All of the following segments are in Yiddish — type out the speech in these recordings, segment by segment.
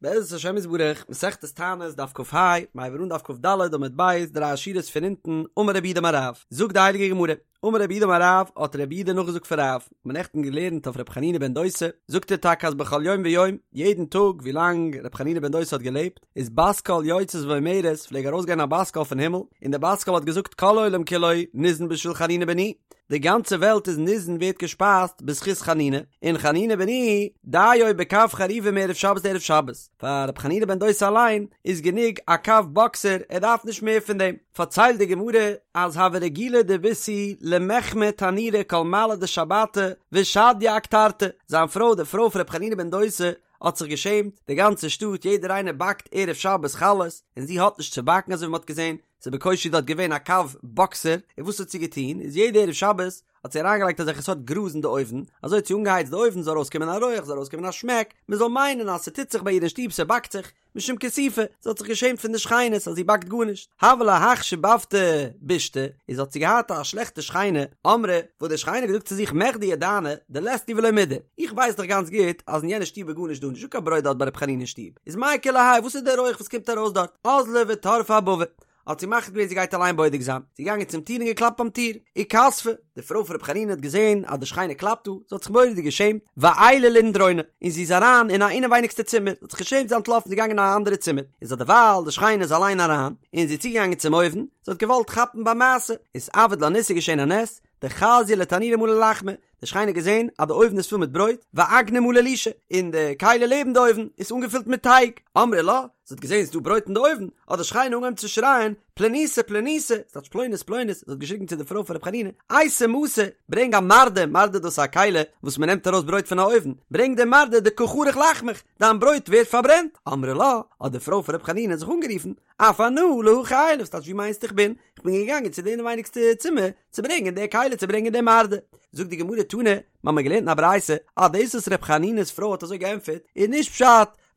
בעזרת השם יתברך, מסכת תענית, דף כ"ה, מיר הייבן אן דף כ"ד עמוד ב', דריי שורות פון אונטן, אמר רב יהודה אמר רב, זאגט די הייליגע גמרא, אמר רב יהודה אמר רב, האט רב יהודה נאכגעזאגט פון רב, מ'האט נעכטן געלערנט אויף רבי חנינא בן דוסא, זאגט ער טאקע אז בכל יום ויום, יעדן טאג ווילאנג רבי חנינא בן דוסא האט געלעבט, איז בת קול יוצאת ואומרת, פלעג ארויסגיין א בת קול פון הימל, און די בת קול האט געזאגט כל העולם כולו ניזון בשביל חנינא בני, די גאנצע וועלט איז ניזון ווערט געשפייזט בזכות חנינא, און חנינא בני דיו בקב חרובים מערב שבת לערב שבת, פאר רבי חנינא בן דוסא אליין איז גענוג א קב באקסער ער דארף נישט מער פון דעם. פארציילט די גמרא אז הוה רגילה דביתהו למחמי תנורא כל מעלי דשבתא ושדיא אקטרתא, זיין פרוי די פרוי פון רבי חנינא בן דוסא האט זיך געשעמט, די גאנצע שטאט יעדער איינער באקט ערב שבת חלות און זי האט נישט צו באקן אזוי ווי מען האט געזען, ס'איז בקושי דארט געווען א קב באקסער, און וואס האט זי געטון, איז יעדע ערב שבת האט זי אריינגעלייגט אזעלכע סארט גראז אין די אויוון, אזוי האט זי אנגעהייצט די אויוון זאל ארויסקומען א רויעך, זאל ארויסקומען א שמעק, מען זאל מיינען אז ס'טוט זיך ביי איר אין שטוב, ס'באקט זיך, משום כיסופא, זי האט זיך געשעמט פון די שכינות אז זי באקט גארנישט. הוה לה הך שיבבתא בישתא, איז האט זי געהאט א שלעכטע שכנה, אמרה, וואס די שכנה האט געזאגט צו זיך מכדי ידענא דלית להו ולא מידי, איך ווייס דאך גאנץ גוט אז אין יענע שטוב איז גארנישט דא, נישטא קיין ברויט דארט ביי ר' חנינא אין שטוב, איז מאי כולי האי, וואס איז דער רויעך וואס קומט ארויס דארט? אזלא וטרפא אבבא, האט זי מחליט געווען זי גייט אליין בודק זיין, זי איז געגאנגען צום טיר און געקלאפט ביים טיר, איכספא, די פרוי פון רבי חנינא האט געזען אז די שכנה קלאפט דא, זי האט זיך מורא'דיג געשעמט, ועיילה לאינדרונא, און זי איז אריין אין א אינעווייניגסטע צימער, זי האט זיך געשעמט זי איז אנטלאפן זי איז געגאנגען אין א אנדערע צימער, איז אדערווייל די שכנה איז אליין אריין, און זי איז צוגעגאנגען צום אויוון, זי האט געוואלט כאפן ביי מעשה, אתעביד לה ניסא, געשען א נס, דחזיא לתנורא מלא לחמא, די שכנה האט געזען אז די אויוון איז פול מיט ברויט, ואגנא מלא לישא, און די כלי לעבן די אויוון איז אנגעפילט מיט טייג, אמרה לה, זי האט געזען ס'איז דא ברויט אין די אויוון, האט די שכנה אנגעהויבן צו שרייען, פלוניתא פלוניתא, ס'טייטש פלונית פלונית, זי האט געשריגן צו די פרוי פון ר' חנינא, אייתי מסא, ברענג א מרדה, מרדה דאס איז א כלי וואס מען נעמט ארויס ברויט פון א אויוון, ברענג די מרדה דקא חריך לחמך, דיין ברויט ווערט פארברענט, אמרה לה, האט די פרוי פון ר' חנינא זיך אנגערופן, אף אנא להכי עיילא, ס'טייטש ווי מיינסטו איך בין? איך בין געגאנגען צו די אינעווייניגסטע צימער צו ברענגען די כלי צו ברענגען די מרדה. זאגט די גמרא תנא, מ'האמיר געלערנט אין א ברייתא אז דאס וואס ר' חנינא'ס פרוי האט אזוי געענטפערט איז נישט פשט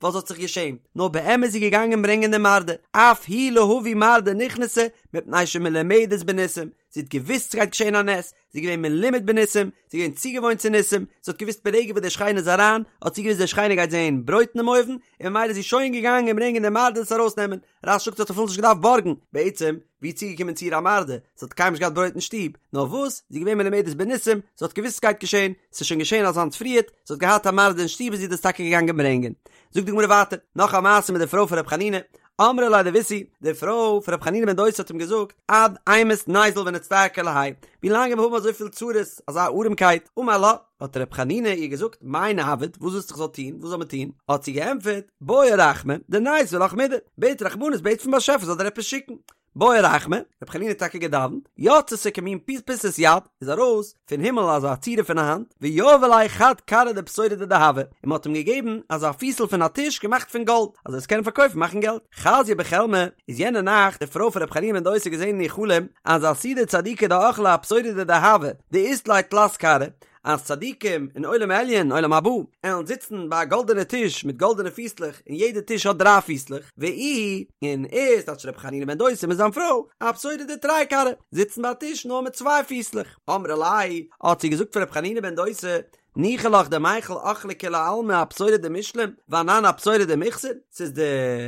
ווייל זי האט זיך געשעמט, נאר באמת איז זי געגאנגען ברענגען די מרדה, אף היא להביא מרדה נכנסה מפני שמלומדת בניסים, זי האט געוואוסט ס'גייט געשען א נס, זי איז געווען מלומד בניסים, זי איז געווען צוגעוואוינט צו ניסים, זי האט געוואוסט ברגע וואס די שכנה איז אריין, האט זי געוואוסט די שכנה גייט זען ברויט אינעם אויוון, און ממילא איז זי שוין געגאנגען ברענגען די מרדה עס ארויסנעמען, רש"י זאגט זי האט אפילו נישט געדארפט בארגן, בעצם, ווי איז צוגעקומען צו איר א מרדה, זי האט קיינמאל נישט געהאט ברויט אין שטוב, נאר וואס, זי איז געווען מלומדת בניסים, זי האט געוואוסט ס'גייט געשען, ס'איז שוין געשען אזאנס פריערט, זי האט געהאט א מרדה אין שטוב איז זי דאס טאקע געגאנגען ברענגען. זאגט די גמרא ווייטער, נאך א מעשה מיט די פרוי פון ר' חנינא, אמרה ליה דביתהו, די פרוי פון ר' חנינא בן דוסא האט אים געזאגט, עד אימת ניזיל ונצטער כולי האי, ווי לאנג וועלן מיר האבן אזויפיל צרות, אזא ארעמקייט, אמר לה, האט ר' חנינא איר געזאגט, מאי נעביד, וואס ווילסטו איך זאל טון, וואס זאל מען טון, האט זי געענטפערט, בעי רחמי, דניתיב לך מידי, בעט רחמנות, בעט פון באשעפער זאל דיר עפעס שיקן. בעי רחמי, רבי חנינא האט טאקע געדאווענט, יצתה כמין פיסת יד, איז ארויס פון הימל אזא צורה פון א האנט, ויהבו ליה חד כרעא דפתורא דדהבא, און מען האט אים געגעבן אזא פיסל פון א טיש געמאכט פון גאלד, אז ער זאל עס קענען פארקויפן מאכן געלט. חזיא בחלמיה, איז יענע נאכט די פרוי פון רבי חנינא בן דוסא געזען אין איר חלום, אז עתידי צדיקי דאכלי אפתורא דדהבא, דאית ליה תלת כרעי, אז צדיקים אין עולם עליון, עולם הבא, עלן זיצן ביי א גאלדענע טיש מיט גאלדענע פיסלעך, און יעדע טיש האט דריי פיסלעך, ואיהו, און ער, ס'טייטש רבי חנינא בן דוסא מיט זיין פרוי, אפתורא דתרי כרעי, זיצן ביי א טיש נאר מיט צוויי פיסלעך. אמרה ליה, האט זי געזאגט פאר רבי חנינא בן דוסא, ניחא לך דמיכל אכלי כולי עלמא אפתורא דמשלם, ואנן אפתורא דמיחסר, ס'איז דיר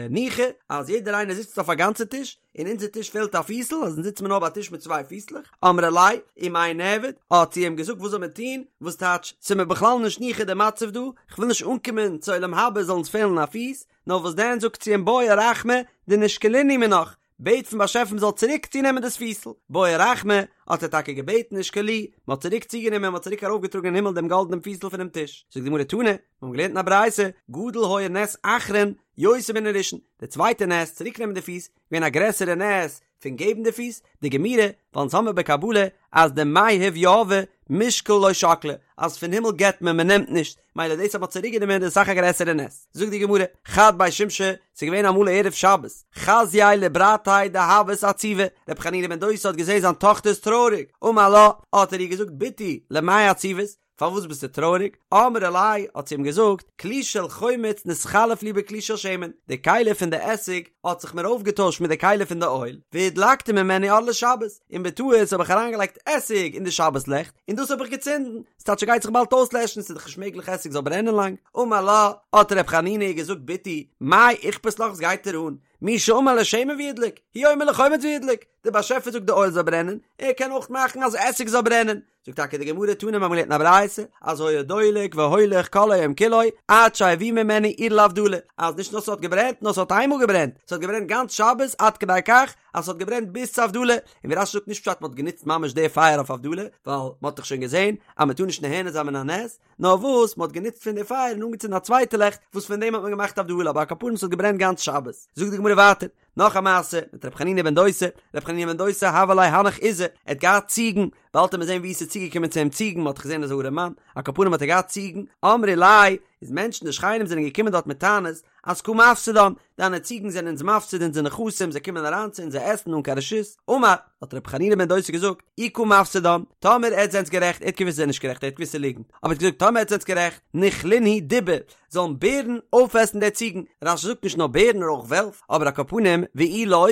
ניחא אז יעדער איינער זיצט אויף א גאנצע טיש, אין אונזער טיש פעלט א פיסל, אז אונז זיצן מיר נאר ביי א טיש מיט צוויי פיסלעך, אמרה ליה, ומאי נעביד, האט זי אים געזאגט וואס זאל מען טון, וואס טייטש, ס'איז מיר בכלל נישט ניחא די מצב דא, כ'וויל נישט אנקומען צו עולם הבא זאל אונז פעלן א פיס, נאר וואס דען זאגט זי אים בעי רחמי דנישקלינהו מינך, בעט פון באשעפער מ'זאל צוריק צונעמען דאס פיסל, בעי רחמי, האט ער טאקע געבעטן ושקלוהו, מ'האט צוריק צוגענומען, מ'האט צוריק ארויפגעטראגן אין הימל דעם גאלדענעם פיסל פונעם טיש, זאגט די גמרא תנא, מיר האבן געלערנט אין א ברייתא, גדול היה נס אחרון יותר מן הראשון, די צווייטע נס, צוריקנעמען די פיס, געווען א גרעסערע נס פון געבן די פיס, דגמירי, ווייל אונז האמיר בקבלה אז דמיהב יהבי מישקל לא שקלי, אז פון הימל געבט מען, מען נעמט נישט, מילא דאס אז מען האט צוריק גענומען איז אסאך א גרעסערע נס. זאגט די גמרא, חד בי שמשי, ס'איז געווען אמאל ערב שבת, חזייה לברתיה דהוות עציבא, רבי חנינא בן דוסא האט געזען זיין טאכטער איז טרויעריג, אמר לה, האט ער איר געזאגט בתי, למאי עציבת? פארוואס ביסטו טרויעריג? אמרה ליה, האט זי אים געזאגט, כלי של חומץ נתחלף לי בכלי של שמן, די כלי פון די עסיג האט זיך מיר אויפגעטוישט מיט די כלי פון די אויל, והדלקתי ממנו אור לשבת, און בטעות האב איך אריינגעלייגט עסיג אין די שבת לעכט, און דאס האב איך געצינדן, ס'טייטש ס'גייט זיך באלד אויסלעשן, ס'איז דאך נישט מעגליך עסיג זאל ברענען לאנג. אמר לה, האט ר' חנינא איר געזאגט בתי, מאי איכפת לך וואס גייט דיר אן? מי שאמר לשמן וידלוק, הוא אומר לחומץ וידלוק, דער באשעפער זאגט די אויל זאל ברענען, ער קען אויך מאכן אז עסיג זאל ברענען. זאגט טאקע די גמרא תנא מיר האבן געלערנט אין א ברייתא אז היה דולק והולך כל היום כולו עד שהביאו ממנו אור להבדלה, אז נישט נאר ס'האט געברענט נאר ס'האט איינמאל געברענט, ס'האט געברענט גאנץ שבת עד כדי כך אז ס'האט געברענט ביז צו הבדלה, און ווי רש"י זאגט נישט פשט מ'האט גענוצט ממש די פייער אויף הבדלה, ווייל מ'האט דאך שוין געזען אז מ'טאר נישט נהנה זיין מן הנס, נאר וואס מ'האט גענוצט פון די פייער און אנגעצינדן א צווייטע לעכט וואס פון דעם האט מען געמאכט הבדלה, אבער על כל פנים ס'האט געברענט גאנץ שבת. זאגט די גמרא ווייטער, נאך א מעשה מיט ר' חנינא בן דוסא, ר' חנינא בן דוסא הוה ליה הנך עיזי, ער האט געהאט ציגן, באלד וועט מען זען ווי עס איז צוגעקומען צו אים ציגן, מ'האט דאך געזען אז ער איז אן ארעמאן, על כל פנים האט ער געהאט ציגן, אמרי ליה, איז מענטשן די שכנים זענען געקומען דארט מיט טענות, אז קא מפסידן, דיינע ציגן זענען אונז מפסיד אונזער נכסים, זיי קומען אריין צו אונז זיי עסן אן קיין רשות. אמר, האט רבי חנינא בן דוסא געזאגט, אי קא מפסידן, טאמער עטס זענטס גערעכט, ער האט געוואוסט זיי זענען נישט גערעכט, ער האט געוואוסט ס'איז ליגנט, אבער ער האט געזאגט טאמער עטס זענטס גערעכט, ניכלינהו דיבי, זאלן בערן אויפעסן די ציגן, רש"י זאגט נישט נאר בערן נאר אויך וועלף, אבער על כל פנים, ואי לא,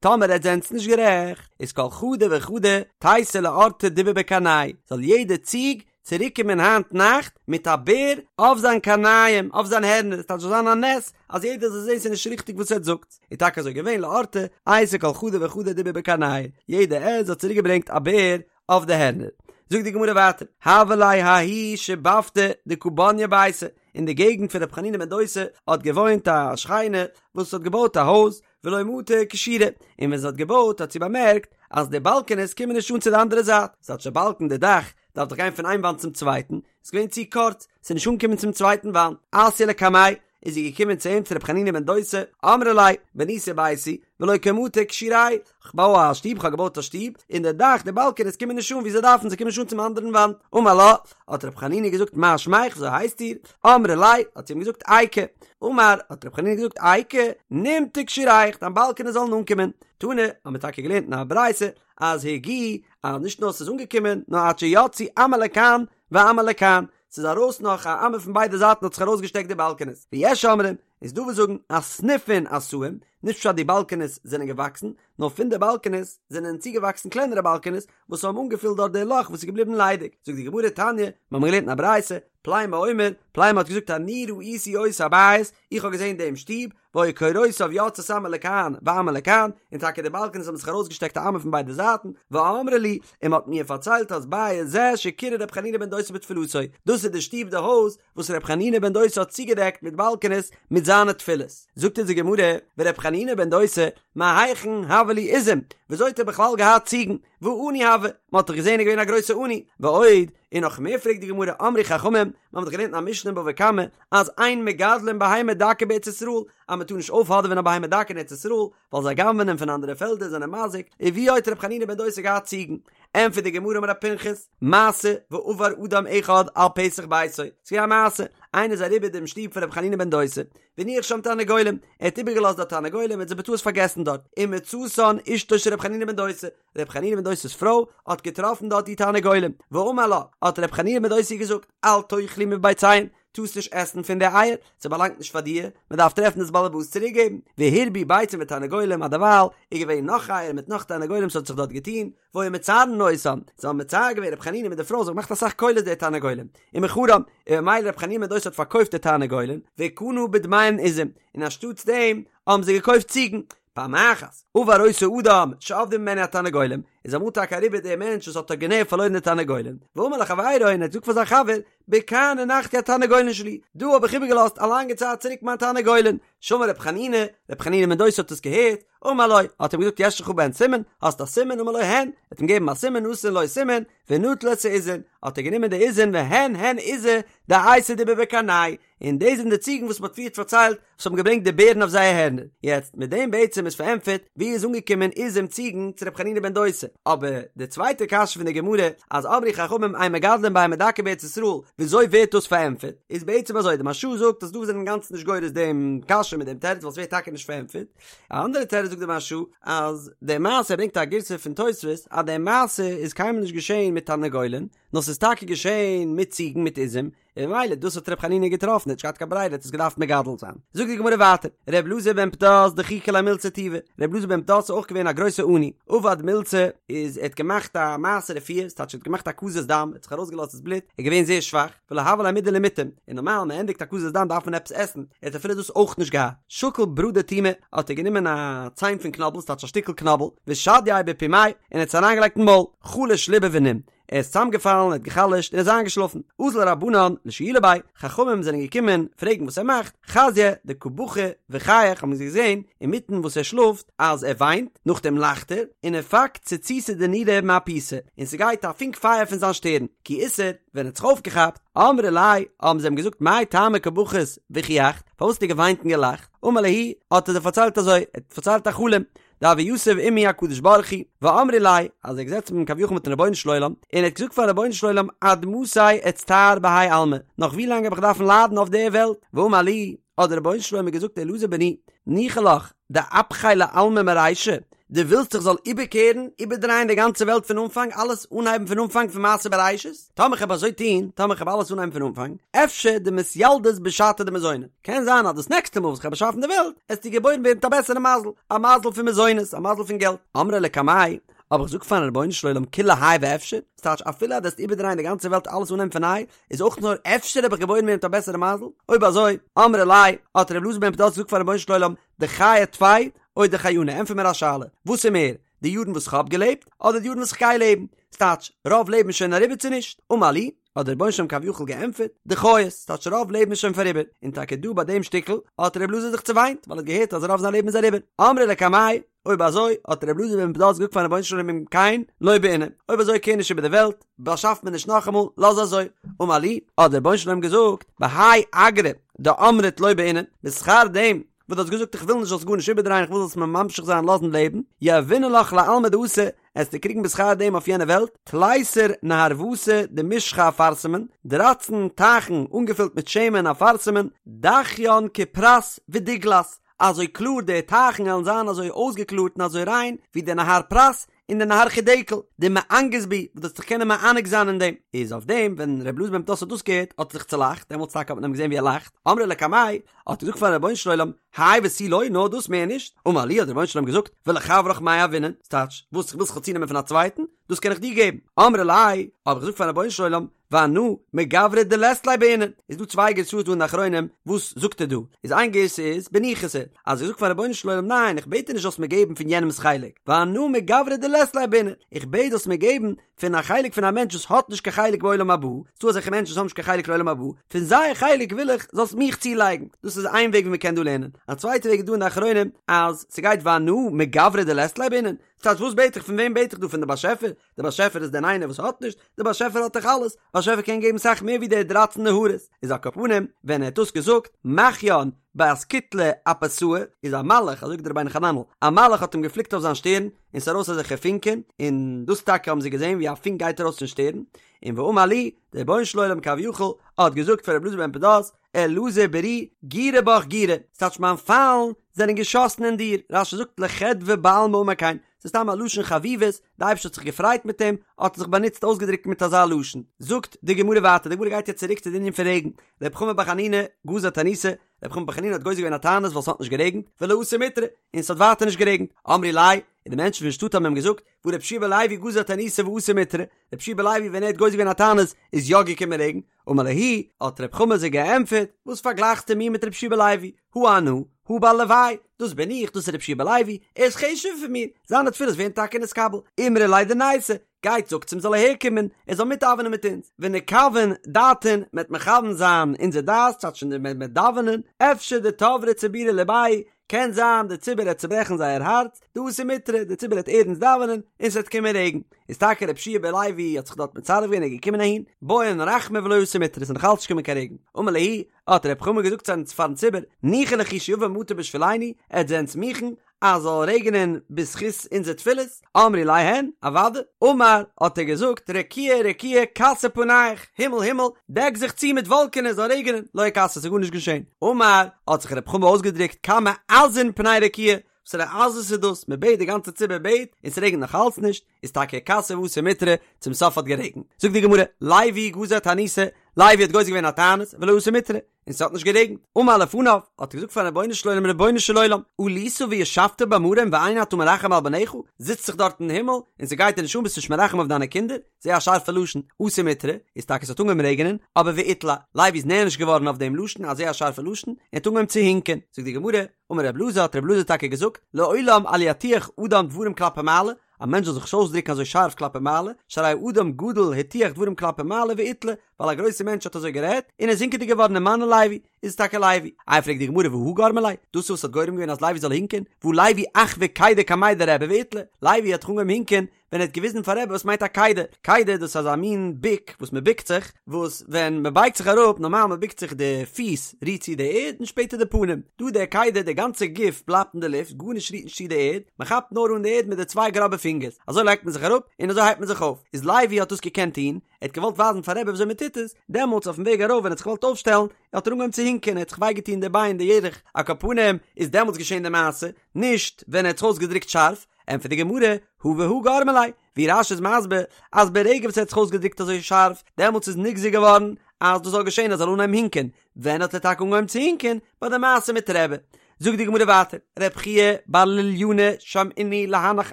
טאמער עטס זענטס נישט גערעכט, איז כל חדא וחדא תיתי לאורתא דיבא בקרנייהו, זאל יעדע ציג צוריקקומען היינט נאכט מיט א בער אויף זיין קרניים, אויף זיין הערנער, עס טייטש זאל זיין א נס אז יעדער זאל זען ס'איז נישט ריכטיג וואס עטס זאגטס, איז טאקע אזוי געווען לאורתא אייתי כל חדא וחדא דיבא בקרנייהו, יעדע עז האט צוריקגעברענגט א בער אויף די הערנער. זאגט די גמרא ווייטער, הוה ליה ההיא שיבבתא דקא בניא ביתא, אין די געגנט פון ר' חנינא בן דוסא האט געוואוינט א שכנה וואס האט געבויט א הויז, ולא מטא כשורי, און ווען זי האט געבויט האט זי באמערקט אז די באלקענעס קומען נישט אן צו די אנדערע זייט, ס'טייטש די באלקן די דאך דארף דאך גיין פון איין וואנט צום צווייטן, איז געווען צו קורץ, ס'איז נישט אנגעקומען צום צווייטן וואנט, אתיא לקמיה, איז זי געקומען צו אים צו ר' חנינא בן דוסא, אמרה ליה, בניתי ביתי, ולא קא מטו כשוראי, כ'בוי א שטוב, כ'האב געבויט א שטוב, און די דאך, די באלקענעס קומען נישט אן ווי זיי דארפן, זיי קומען נישט אן צום אנדערן וואנט. אמר לה, האט ר' חנינא געזאגט, מה שמך, וויאזוי הייסט איר? אמרה ליה, האט זי אים געזאגט, איקא. אמר, האט ר' חנינא געזאגט, איקא, נימטו כשוריך, דיין באלקענעס זאלן אנקומען. תנא, האבן מיר טאקע געלערנט אין א ברייתא, אז הגיעו, אז נישט נאר ס'איז אנגעקומען, נאר עד שיצאו אמה לכאן ואמה לכאן, ס'איז ארויס נאך א אמה פון ביידע זייטן האט זיך ארויסגעשטעקט די באלקענעס, ויש אומרים, איז דא וואס זאגן אסניפין עשאום, נישט פשט די באלקענעס זענען געוואקסן, נאר פון די באלקענעס זענען צוגעוואקסן קלענערע באלקענעס וואס האבן אנגעפילט דארט די לאך וואס איז געבליבן ליידיג, זאגט די גמרא תניא, מיר האבן געלערנט אין א ברייתא, פלימו אומר, פלימו האט געזאגט אני ראיתי אותו הבית, איך האב געזען דעם שטוב, והיו קורותיו יוצאות אמה לכאן ואמה לכאן, און טאקע די באלקענעס האבן זיך ארויסגעשטעקט א אמה פון ביידע זייטן, ואמרו לי, און מען האט מיר פארציילט אז בית זה שקירה ר' חנינא בן דוסא בתפילתו, דאס איז די שטוב די הויז וואס ר' חנינא בן דוסא האט צוגעדעקט מיט באלקענעס מיט זיינע תפילות. זאגט אונז די גמרא, ור' חנינא בן דוסא, מהיכן הוה ליה עיזים, וויאזוי האט ער בכלל געהאט ציגן, והא עני הוה, מען האט דאך געזען ער איז געווען א גרויסע עני, ועוד, און נאך מער פרעגט די גמרא, אמרו חכמים, מען האט דאך געלערנט אין א משנה אין בבא קמא, אז אין מגדלין בהמה דקה בארץ ישראל, אז מען טאר נישט אויפהאדעווען א בהמה דקה אין ארץ ישראל, ווייל זיי גנב'נען פון אנדערע פעלדער זענען מזיק, און ווי האט ר' חנינא בן דוסא געהאט ציגן? ענטפערט די גמרא אמר רב פנחס, מעשה ועבר אדם אחד על פתח ביתו, ס'איז געווען א מעשה, איינער איז אריבער דעם שטוב פון ר' חנינא בן דוסא, והניח שם תרנגולים, ער האט איבערגעלאזט דארט תרנגולים, ער האט זיי בטעות פארגעסן דארט, ומצאתן אשתו של ר' חנינא בן דוסא, ר' חנינא בן דוסא'ס פרוי האט געטראפן דארט די תרנגולים, ואמר לה, האט ר' חנינא בן דוסא געזאגט, אל תאכלי מביציהן, טארסט נישט עסן פון די אייער, ס'באלאנגט נישט פאר דיר, מ'דארף טרעפן דאס באלעבאס צוריקגעבן, והרבו ביצים ותרנגולים, אז דערווייל איז געווען נאך אייער מיט נאך תרנגולים ס'האט זיך דארט געטון, והיו מצערין אותם, זיי האבן מצער געווען ר' חנינא מיט די פרוי, זיי האבן געמאכט אסאך קולות די תרנגולים, ומכרן, און ממילא ר' חנינא בן דוסא האט פארקויפט די תרנגולים, וקנה בדמיהן עזים, און אנשטאטס דעם האבן זיי געקויפט ציגן, פעם אחת, עבר אותו אדם שאבדו ממנו התרנגולים, איז אמאל טאקע אריבער דער מענטש וואס האט ארגינעל פארלוירן די תרנגולים, ואמר לחבירו און ער האט געזאגט פאר זיין חבר, בכאן הנחתי התרנגולין שלי, דא האב איך איבערגעלאזט א לאנגע צייט צוריק מיין תרנגולין, שמע ר' חנינא, ר' חנינא בן דוסא האט עס געהערט, אמר לו, האט אים געזאגט יש לך בהן סימן, האסט א סימן, אמר לו הן, ער האט אים געגעבן א סימן, נתן לו סימן, ונטל את העזין, האט ער גענומען די עזין והן הן עיזי דאייתו דיבי בקרנייהו, און דאס זענען די ציגן וואס מ'האט פריערט פארציילט וואס האבן געברענגט די בערן אויף זייער הערנער. יעצט, מיט דעם בעצם איז פארענטפערט ווי איז אנגעקומען עיזים ציגן צו ר' חנינא בן דוסא. אבער די צווייטע קשיא פון די גמרא אז אמרו חכמים אין מגדלין בהמה דקה בארץ ישראל וויאזוי ווערט דאס פארענטפערט? איז בעצם אזוי, די מהרש"א זאגט אז דא זענען אינגאנצן נישט גורס דעם קשיא מיט דעם תירוץ ווייל ס'ווערט טאקע נישט פארענטפערט. א אנדערע תירוץ זאגט די מהרש"א אז די מעשה ער ברענגט א גירסא פון תוספות אז די מעשה איז קיינמאל נישט געשען מיט תרנגולין, נאר ס'איז טאקע געשען מיט ציגן מיט עזים, און ממילא דאס האט ר' חנינא געטראפן, ער האט נישט געהאט קיין ברירה, ער האט עס געדארפט מגדל זיין. זאגט די גמרא ווייטער, ר' אלעזר בן פדת דחיקא ליה מילתא טובא, ר' אלעזר בן פדת איז אויך געווען א גרויסע עני, עבד מילתא, איז ער האט געמאכט א מעשה רפואה, ס'טייטש ער האט געמאכט הקזת דם, ער האט זיך ארויסגעלאזט דאס בלוט, ער איז געווען זייער שוואך, ולא הוה ליה מידי למטעם, און נארמאל מען ענדיגט הקזת דם דארף מען עפעס עסן, ער האט אפילו דאס אויך נישט געהאט, שקל ברא דתומא, האט ער גענומען א ציין פון קנאבל, ס'טייטש א שטיקל קנאבל, ושדייה בפומיה, און ער האט עס אריינגעלייגט אין מויל, חלש ליבא ונים, ער איז צוזאמגעפאלן, ער האט גע'חלש'ט און איז איינגעשלאפן. אזול רבנן לשיולי ביה, חכמים זענען געקומען פרעגן וואס ער מאכט, חזייה דקא בכי וחייך האבן זיי געזען אינמיטן וואס ער שלאפט אז ער וויינט, נאכדעם לאכט ער, ונפק ציצתא דנורא מאפותיה, און ס'גייט א פונק פייער פון זיין שטערן, כי אתער, ווען ער האט זיך אויפגעכאפט, אמרי ליה, האבן זיי אים געזאגט מאי טעמא קא בכית וחייכת, פארוואס האסטו געוויינט און געלאכט? אמר להו, האט ער זיי פארציילט אזוי, ער האט פארציילט א חלום, דהוה יתיב עמי הקדוש ברוך הוא, ואמרי ליה, אז ער האט געזעצן מיט כביכול מיטן רבונו של עולם, און ער האט געזאגט פארן רבונו של עולם עד מתי אצטער בהאי עלמא, נאך ווי לאנג האב איך דארפן ליידן אויף דער וועלט, ואמר לי, האט דער רבונו של עולם מיר געזאגט אלעזר בני, ניחא לך, דאפכיה לעלמא מרישא, דו ווילסט איך זאל איבערקערן, איבערדרייען די גאנצע וועלט פון אנפאנג, אלעס אנהייבן פון אנפאנג פון מעשה בראשית? טאמער כ'העב אזוי טון, טאמער כ'העב אלעס אנהייבן פון אנפאנג, אפשר דמתילדת בשעתא דמזוני, קען זיין אז דאס נעקסטע מאל וואס כ'העב באשאפן די וועלט, עסטו געבוירן ווערן מיט א בעסערע מזל, א מזל פון מזונות, א מזל פון געלט. אמרי לקמיה, האב איך געזאגט פארן רבונו של עולם כולי האי ואפשר, ס'טייטש אפילו אז דו עסט איבערדרייען די גאנצע וועלט אלעס אנהייבן פון ניי, איז אויך נאר אפשר האב איך געבוירן ווערן מיט א בעסערע מזל? אויב אזוי, אמרי ליה, האט ר' אלעזר בן פדת געזאגט פארן רבונו של עולם, דחיי טפי, או דחיינא, ענטפער מיר א שאלה, וואס איז מער, די יארן וואס כ'האב געלעבט, אדער די יארן וואס כ'גיי לעבן? ס'טייטש, רוב לעבן איז שוין אריבער צו נישט? אמר לי, האט דער רבונו של עולם כביכול געענטפערט, דחיית, ס'טייטש רוב לעבן איז שוין פאריבער, און טאקע דא ביי דעם שטיקל האט ר' אלעזר זיך צעוויינט, ווייל ער האט געהערט אז רוב זיין לעבן איז אריבער. אמרי לקמיה, אויב אזוי, האט ר' אלעזר בן פדת געזאגט פארן רבונו של עולם אם כן, לא בעינא, אויב אזוי קער נישט איבער די וועלט, באשאף מיר נישט נאכאמאל, לאז אזוי. אמר לי, האט דער רבונו של עולם געזאגט, בהאי אגרא דאמרת לא בעינא, בשכר דעם וואס דו האסט געזאגט איך וויל נישט זאלסט גארנישט איבערדרייען איך וויל זאלסט מיר ממשיך זיין לאזן לעבן, יהיבנא לך לעלמא דאתי, עסטו קריגן בשכר דעם אויף יענע וועלט, תליסר נהרוותא דמשחא אפרסמון, דרייצן טייכן אנגעפילט מיט שמן אפרסמון, דכיין כפרת ודיגלת, אזוי קלאר די טייכן וועלן זיין אזוי אויסגעקלארט און אזוי ריין ווי די נהר פרת און די נהר חידקל, דמענגת בהו, וואס דו וועסט זיך קענען מענג זיין אין דעם. איז אויף דעם ווען ר' אלעזר בן פדת האט דאס געהערט האט ער זיך צולאכט, דעמאלטס טאקע האט מען אים געזען ווי ער לאכט, אמרי לקמיה, האט ער געזאגט פארן רבונו של עולם, האי ותו לא, נאר דאס מער נישט, אמר להו האט דער רבונו של עולם געזאגט, ולחברך מאי יהיבנא, ס'טייטש, וואס ווילסט כ'זאל צונעמען פון א צווייטן, דאס קען איך דיר געבן, אמרי ליה, האב איך געזאגט פארן רבונו של עולם, ואנא מגברא דלית ליה בעינא, איז דא צוויי גירסאות דא אין די אחרונים, וואס זאגט ער דא? איז איין גירסא איז בניחותא, אז איך זאג פארן רבונו של עולם ניין איך בעט דיר נישט זאלסט מיר געבן פון יענעמ'ס חלק, ואנא מגברא דלית ליה בעינא, איך בעט זאלסט מיר געבן פון א חלק פון א מענטש וואס האט נישט קיין חלק בעולם הבא, ס'דא אזעלכע מענטשן וואס האבן נישט קיין חלק לעולם הבא, פון זייער חלק וויל איך זאלסט מיך צולייגן, דאס איז איין וועג ווי מ'קען דא לערנען, א צווייטע וועג איז דא אין די אחרונים אז ס'גייט ואנא מגברא דלית ליה בעינא, ס'טייטש וואס בעט איך פון וועם בעט איך דא פון די באשעפער? די באשעפער איז דען איינער וואס האט נישט? די באשעפער האט דאך אלעס, באשעפער קען געבן סאך מער ווי די דרייצן נהרות, איז על כל פנים ווען ער האט דאס געזאגט מחיין באסקוטלא אפותאי איז א מלאך, אזוי זאגט דער רבינו חננאל, א מלאך האט אים געפליקט אויף זיין שטערן, און ס'איז ארויס אזעלכע פונקען, און דאס טאקע האבן זיי געזען ווי א פונק גייט ארויס פון שטערן, און ואמר לי, דער רבונו של עולם כביכול האט געזאגט פאר רבי אלעזר בן פדת, אלעזר ברי גירי בך גירי, ס'טייטש מיין פיילן זענען געשאסן אין דיר, רש"י זאגט לחדוה בעלמא אמר כן, ס'איז סתם א לשון חביבות, די אייבערשטער האט זיך געפרייט מיט אים, האט ער זיך באנוצט אויסגעדרוקט מיט אזא לשון. זאגט די גמרא ווייטער, די גמרא גייט יעצט צוריק צו די ענין פון רעגן, רב חמא בר חנינא גזר תעניתא, רב חמא בר חנינא האט גוזר געווען א תענית ווייל ס'האט נישט גערעגנט, ולא אתא מיטרא, און ס'האט ווייטער נישט גערעגנט, אמרי ליה, און די מענטשן פון שטאט האבן אים געזאגט, והא רבי יהושע בן לוי גזר תעניתא ואתא מיטרא, רבי יהושע בן לוי ווען ער האט גוזר געווען א תענית איז יא געקומען רעגן, אמר להו, האט רב חמא זיי געענטפערט, וואס פארגלייכסטו מיר מיט רבי יהושע בן לוי, הא אנא, הא בר לוי, דאס בין איך, דאס איז רבי יהושע בן לוי, ער איז חשוב'ער פון מיר, זיינע תפילות ווערן טאקע נתקבל, אמרו ליה דניתי, גייט זאגטס אים זאל אהער קומען, ער זאל מיטדאווענען מיט אונז, ונכוון דעתין, מ'עט מכוון זיין אונזער דעת, ס'טייטש מ'עט דאווענען, אפשר דתברי ציבורא לבייהו, קען זיין די ציבור העט צוברעכן זייער הארץ, דאתי מיטרא, די ציבור העט ערנסט דאווענען, און ס'וועט קומען רעגן. איז טאקע רבי יהושע בן לוי האט זיך דארט מצרף געווען און געקומען אהין, בעון רחמי ולא אתא מיטרא, ס'איז נאך אלץ נישט געקומען קיין רעגן. אמר להו, האט רב חמא געזאגט פארן ציבור, ניחא לכו שיבא מטר בשבילנו, עטס זענטס מוכן אז זאל רעגענען בזכות אונזער תפילות? אמרי ליה הן, אוודאי. אמר, האט ער געזאגט, רקיע רקיע כסי פניך, הימל הימל, דעק זיך צו מיט וואלקענעס זאל רעגענען, לא איכסי, ס'איז גארנישט געשען. אמר, האט זיך רב חמא אויסגעדרוקט, כמה עזין פני רקיע, וואסערע עזות איז דאס, מען בעט די גאנצע ציבור בעט און ס'רעגנט נאך אלץ נישט, איז טאקע אכתי ואתא מיטרא, צום סוף האט גערעגנט. זאגט די גמרא, לוי גזר תעניתא, לוי האט גוזר געווען א תענית, ולא אתא מיטרא, און ס'האט נישט גערעגנט. אמר לפניו, האט ער געזאגט פארן רבונו של עולם, רבונו של עולם, עלית וישבת במרום ואין אתה מרחם על בניך, זיצט זיך דארט אין הימל, און ס'גייט דיר נישט אן, ביסט נישט מרחם אויף דיינע קינדער, זייער א שארפע לשון, אתא מיטרא, איז טאקע ס'האט אנגעהויבן רעגענען, אבער ואיטלע, לוי איז נענש געווארן אויף דעם לשון, א זייער שארפע לשון, און האט אנגעהויבן צו הינקען. זאגט די גמרא, אמר רב אלעזר, האט רב אלעזר טאקע געזאגט, לעולם אל יטיח אדם דברים כלפי מעלה, א מענטש זאל זיך נישט אויסדרוקן אזוי שארף כלפי מעלה, שהרי אדם גדול הטיח דברים כלפי מעלה ואיטלע, ווייל א גרויסער מענטש האט אזוי גערעדט, און איז הינקעדיג געווארן ומנו לוי, איז עס טאקע לוי. איי פרעגט די גמרא והא גרמא ליה, דאס איז וואס האט גורם געווען אז לוי זאל הינקען, והא לוי אחוי קידה קמיה דרבי ואיטלע, לוי האט דאך אנגעהויבן הינקען ווען ער האט געוויזן פאר רבי וואס מיינט א קידה, קידה דאס איז אזא מין ביק וואס מען ביקט זיך, וואס ווען מען בייגט זיך אראפ, נארמאל מען ביקט זיך די פיס רירט צו די ערד און שפעטער די פנים, דא די קידה די גאנצע גוף בלייבט אין די לופט גארנישט רירט נישט צו די ערד, מען כאפט נאר אן די ערד מיט די צוויי גראבע פינגערס, אזוי לייגט מען זיך אראפ און אזוי הייבט מען זיך אויף, איז לוי האט דאס געקענט טון, ער האט געוואלט ווייזן פאר רבי וויאזוי מען טוט עס, דעמאלטס אויפן וועג ארויף ווען ער האט זיך געוואלט אויפשטעלן, האט ער אנגעהויבן צו הינקען, ער האט זיך וויי געטון די ביין די ירך, על כל פנים איז דעמאלטס געשען די מעשה, נישט ווען ער האט זיך אויסגעדרוקט שארף, ענטפערט די גמרא, הא והא גרמא ליה, ווי רש"י איז מסביר אז ברגע וואס ער האט זיך אויסגעדרוקט אזוי שארף, דעמאלטס איז נגזר געווארן אז דאס זאל געשען ער זאל אנהייבן הינקען, ווען האט ער טאקע אנגעהויבן צו הינקען? ביי די מעשה מיט רבי. זאגט די גמרא ווייטער, רב חייא בר לוליינא שמעינהו להנך